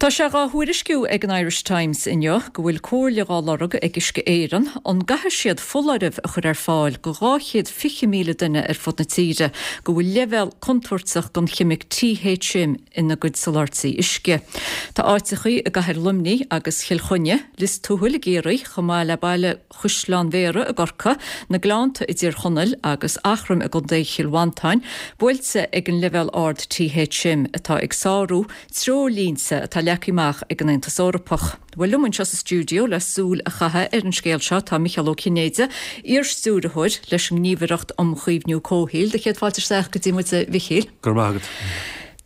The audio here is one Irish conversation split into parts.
Tá sé dhá thuairisciú ag an Irish Times inniu go bhfuil comhairle dhá lorg ag Uisce Éireann an gcaithfidh siad foláireamh a chur ar fáil go 220,000 duine ar fud na tíre go bhfuil leibhéal contúirteach den cheimic THM ina gcuid soláthairtí uisce. Tá áiteachaí i gcathair Luimnigh agus Chill Chainnigh, Lios Tuathail i gCiarraí chomh maith le baile Chaisleán Bhéarra i gCorcaigh, na Gleannta i dTír Chonaill agus Eachroim i gContae Chill Mhantáin buailte ag an leibhéal ard THM atá ag sárú treoirlínte atá leagtha amach ag an Aontas Eorpach. Bhuel, liom anseo sa stiúideo le súil a chaitheamh ar an scéal seo tá Micheál Ó Cinnéide, iar-stiúrthóir leis an nGníomhaireacht um Chaomhnú Comhshaoil. Do chéad fáilte isteach go dtí muid, a Mhichíl. Go raibh maith agat.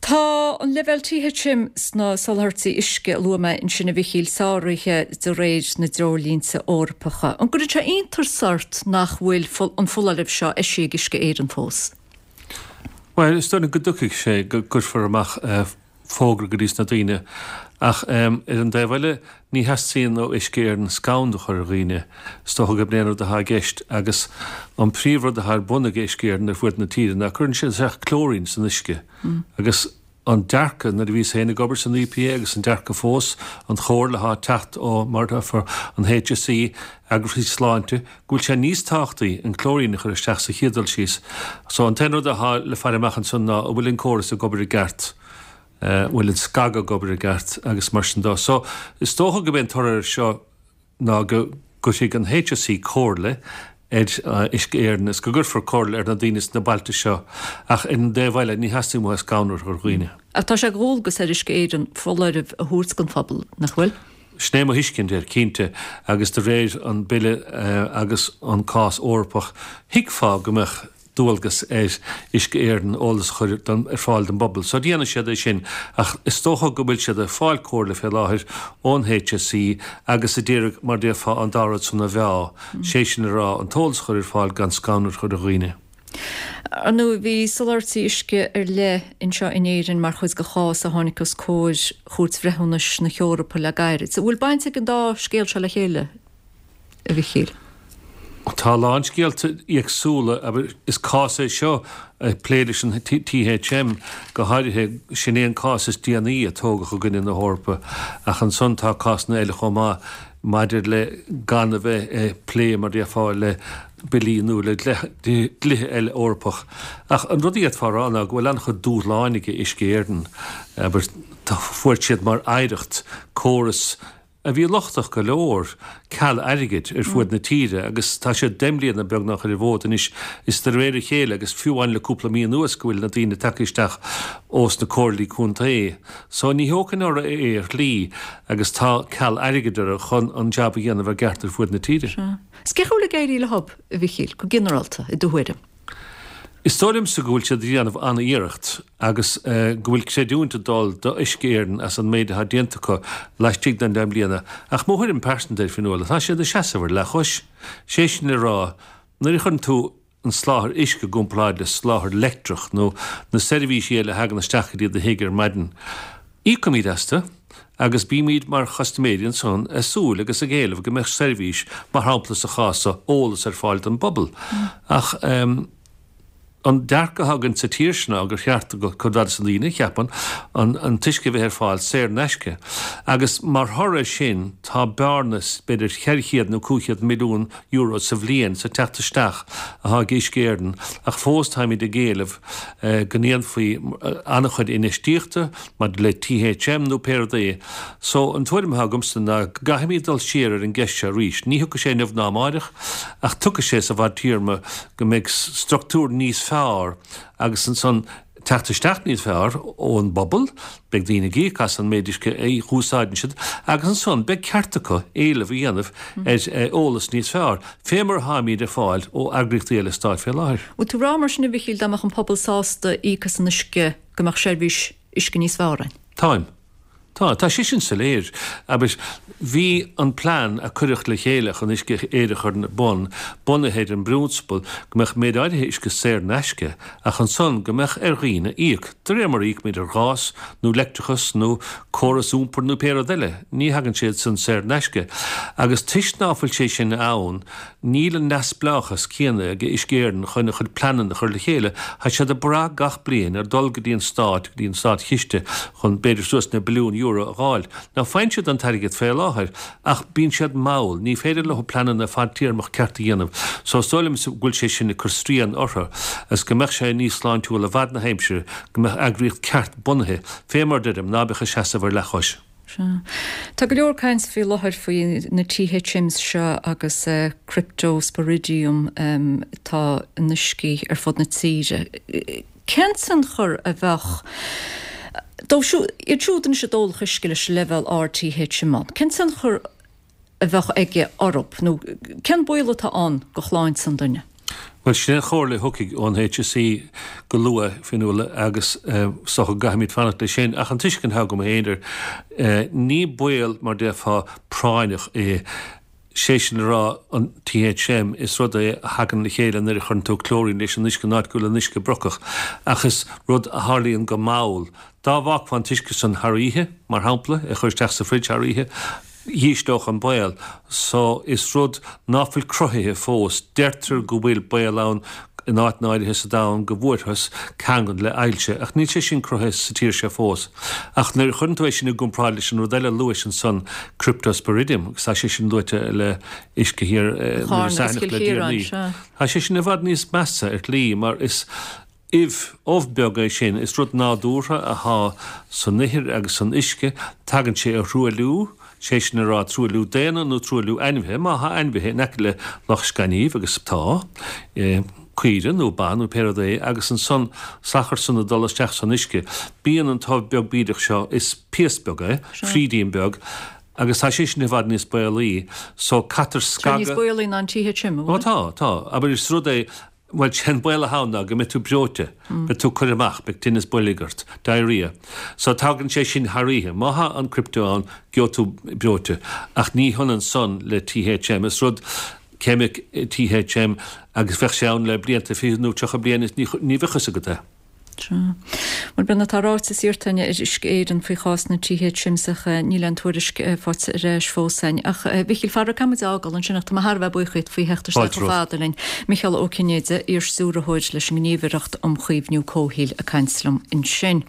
Tá an leibhéal THM sna soláthairtí uisce a luaigh mé ansin, a Mhichíl, sáraithe de réir na dtreoirlínte Eorpacha. An gcuireann sé iontas ort nach bhfuil an foláireamh seo eisithe ag Uisce Éireann fós? Bhuel, is dóigh liom go dtiocfaidh sé go gcuirfear amach fógra go dtí sna daoine ach ar an dtaobh eile ní theastaíonn ó Uisce Éireann scanradh a chur ar dhaoine. Is dócha gurb é an rud atá i gceist agus an príomhrud atá ar bun ag Uisce Éireann ar fuaid na tíre ná cuireann siad isteach clóirín san uisce agus an dearcadh nuair a bhíos féin ag obair san EPA agus an dearcadh fós, an chomhairle atá ag teacht ó, mar atá, an HSE, eagraíochtaí sláinte, go bhfuil sé níos tábhachtaí an clóirín a chur isteach sa chéad dul síos. So an t-aon rud atá le faire amach ansan ná an bhfuil an córas ag obair i gceart, an bhfuil an scagadh ag obair i gceart agus mar sin dó. So is dócha go b'é an toradh air seo ná go gcuirfidh an HSE comhairle ar Uisce Éireann is go gcuirfear comhairle ar na daoine sna bailte seo ach ar an dtaobh eile ní theastaíonn uathu scanradh a chur ar dhaoine. Ach tá sé de dhualgas ar Uisce Éireann foláireamh a thabhairt don phobal, nach bhfuil? Sin é mo thuiscint air, cinnte, agus de réir an Bille agus an cás Eorpach, thuigfeá go mbeadh dualgas ar Uisce Éireann eolas a chur ar fáil don bpobal. So déanfaidh siad é sin ach is dócha go bhfuil siad ag fáil comhairle fé láthair ón HSE agus a d'iarraidh, mar déarfá, an dá rud san a mheá, sé sin a rá, an t-eolas a chur ar fáil gan scanradh a chur ar dhaoine. Ar ndóigh, bhí soláthairtí uisce ar leith anseo in Éirinn mar chuid de chás a tháinig os comhair Chúirt Bhreithiúnais na hEorpa le gairid. An bhfuil baint ag an dá scéal seo le chéile? a Mhichíl. Tá a lán scéalta éagsúla, abair, is cás é seo ag plé leis an THM go háirithe, sin é an cás is déanaí a tógadh i gcoinne na hEorpa, ach ansan tá cásanna eile chomh maith maidir le gan a bheith ag plé, mar déarfá, le billí nó le dlíthe eile Eorpach. Ach an rud a d'fhéadfá a rá ná go bhfuil an-chuid dúshláin ag Uisce Éireann, abair, fuair siad mar oidhreacht córas a bhí lochtach go leor, ceal airgid ar fuaid na tíre agus tá siad 10 mbliana beagnach ar an bhfód anois is de réir a chéile agus fiú amháin le cúpla mí anuas go bhfuil na daoine tagtha isteach ós na comhairlí contae. So ní thógfainn orthu é ar shlí agus tá ceal airgid orthu chun an jab a dhéanamh i gceart ar fuaid na tíre. Sea. Is cén chaoi a bhfuil ag éirí leo, a Mhichíl, go ginearálta, i do thuairim? Is dóigh liomsa go bhfuil siad ag déanamh an-iarracht agus go bhfuil creidiúint ag dul do Uisce Éireann as an méid atá déanta acu laistigh den 10 mbliana ach mo thuairim pearsanta air, Fionnuala, tá siad ag seasamh ar leathchois. Sé sin le rá, nuair a chuireann tú an soláthar uisce i gcomparáid le soláthar leictreach nó na seirbhísí eile a thagann isteach go dtí do thigh ar maidin, Íocaimid astu agus bímid mar chustaiméirí ansan ag súil agus ag éileamh go mbeadh seirbhís, mar shampla sa chás so, eolas ar fáil don bpobal. Ach an dearcadh atá againn sa tír seo ná gur cheart do chuid mhaith de na daoine, cheapfainn, an t-uisce a bheith ar fáil saor in aisce. Agus mar thoradh air sin tá bearna b'fhéidir 400 nó 500 milliún euro sa bhliain sa teacht isteach atá ag Uisce Éireann ach fós táimid ag éileamh go ndéanfaí an-chuid infheistíochta maidir le THM nó pé rud é. So, an tuairim atá agamsa ná go gcaithfimid dul siar ar an gceist seo arís. Ní thiocfaidh sé inniu ná amáireach ach tiocfaidh sé sa bhfadtéarma go mbeidh structúr níos fearr agus ansan teacht isteach níos fearr ón bpobal, beidh daoine ag íoc as an méid uisce a úsáideann siad agus ansan beidh ceart acu éileamh a dhéanamh ar eolas níos fearr, fé mar atáimid ag fáil ó eagraíochtaí eile stáit fé láthair. Bhfuil tú ag rá mar sin a Mhichíl dá mbeadh an pobal sásta íoc as an uisce go mbeadh seirbhís uisce níos fearr ann? Táim. Tá, tá sé sin soiléir. Abair, bhí an plean a cuireadh le chéile chun Uisce Éireann a chur ar bun bunaithe ar an bprionsabal go mbeadh méid áirithe uisce saor in aisce ach ansan go mbeadh ar dhaoine íoc, de réir mar a íocaimid ar ghás nó leictreachas nó córas iompair nó pé rud eile. Ní thagann sé san saor in aisce. Agus toisc ná fuil sé sin ann, Níl an neamhspleáchas céanna ag Uisce Éireann chun a chuid pleananna a chur le chéile. Tá siad ag brath gach bliain ar dul go dtí an stát, go dtí an státchiste chun b'fhéidir suas le billiún euro. a dh'fháil. Now faigheann siad an t-airgead fé láthair ach bíonn siad mall, ní féidir leo pleananna fadtéarmach ceart a dhéanamh. So is dóigh liomsa go bhfuil sé sin ag cur srian orthu agus go mbeadh sé níos sláintiúla i bhfad na haimsire go mbeadh eagraíocht ceart bunaithe, fé mar deirim, ná beadh ag seasamh ar leathchois. Sea. Tá go leor caint faoi láthair faoi na THMs seo agus Cryptosporidium atá in uiscí ar fud na tíre. Cén tionchar a bheadh dóibh siúd, iad siúd anois a d'ólfadh uisce leis an leibhéal ard THM ann, cén tionchar a bheadh aige orthu nó cén baol atá ann do shláinte an duine? Bhuel, sin é an chomhairle a thiocfaidh ón HSE go luath, Fionnuala, agus is dócha go gcaithfimid fanacht leis sin. Ach an tuiscint atá agam féin air, ní baol, mar déarfá, práinneach é. Sé sin le rá, an THM, is rud é a thagann le chéile nuair a chuireann tú clóirín leis an uisce in áit go bhfuil an uisce brocach. Ach is rud a tharlaíonn go mall. Dá bhfágfá an t-uisce san thar oíche, mar shampla, é a chur isteach sa fridge thar oíche, dhísleodh an baol. So, is rud ná fuil cruthaithe fós. Deirtear go bhfuil baol ann in áiteanna áirithe sa domhan go bhfuarthas ceangal le ailse, ach níl sé sin cruthaithe sa tír seo fós. Ach nuair a chuireann tú é sin i gcomparáid leis an rud eile a luais ansan, Cryptosporidium, agus tá sé sin luaite le uisce thiar Iorras Aithneach le deireanaí, tá sé sin i bhfad níos measa ar shlí mar is ubh, ubh beag é sin, is rud nádúrtha athá san ithir agus san uisce, tagann sé ó thruailliú, sé sin a rá truailliú daonna nó truailliú ainmhithe, má thá ainmhithe in aice le loch gainimh, agus tá, caoire nó ba nó pé rud é, agus ansan salachar san ag dul isteach san uisce, bíonn an t-ubh beag bídeach seo, is piast beag é, frídín beag, agus tá sé sin i bhfad níos baolaí, so caitear scagadh. Tá níos baolaí ná an THM, an bhfuil? Ó tá, tá, abair is rud é, Bhuel, sé an baol atá ann ná go mbeidh tú breoite, beidh tú curtha amach, beidh tinneas boilg ort, diarrhea. So tagann sé sin thar oíche. Má thá an crypto ann, gheobhaidh tú breoite. Ach ní hionann san le THM. Is rud ceimic THM agus bheadh sé ann le blianta, 20 nó 30 bliain is ní bheadh fhios agat é. Sea. Bhuel, b'in atá ráite is iarrta againn ar Uisce Éireann faoi chás na THMs ach níl aon tuairisc faighte ar ais fós againn. Ach, a Mhichíl, faraor caithfidh muid é a fhágáil ansin ach tá mé thar a bheith buíoch díot faoi theacht isteach chomh fada linn. Micheál Ó Cinnéide, iar-stiúrthóir leis an nGníomhaireacht um Chaomhnú Comhshaoil ag caint liom ansin.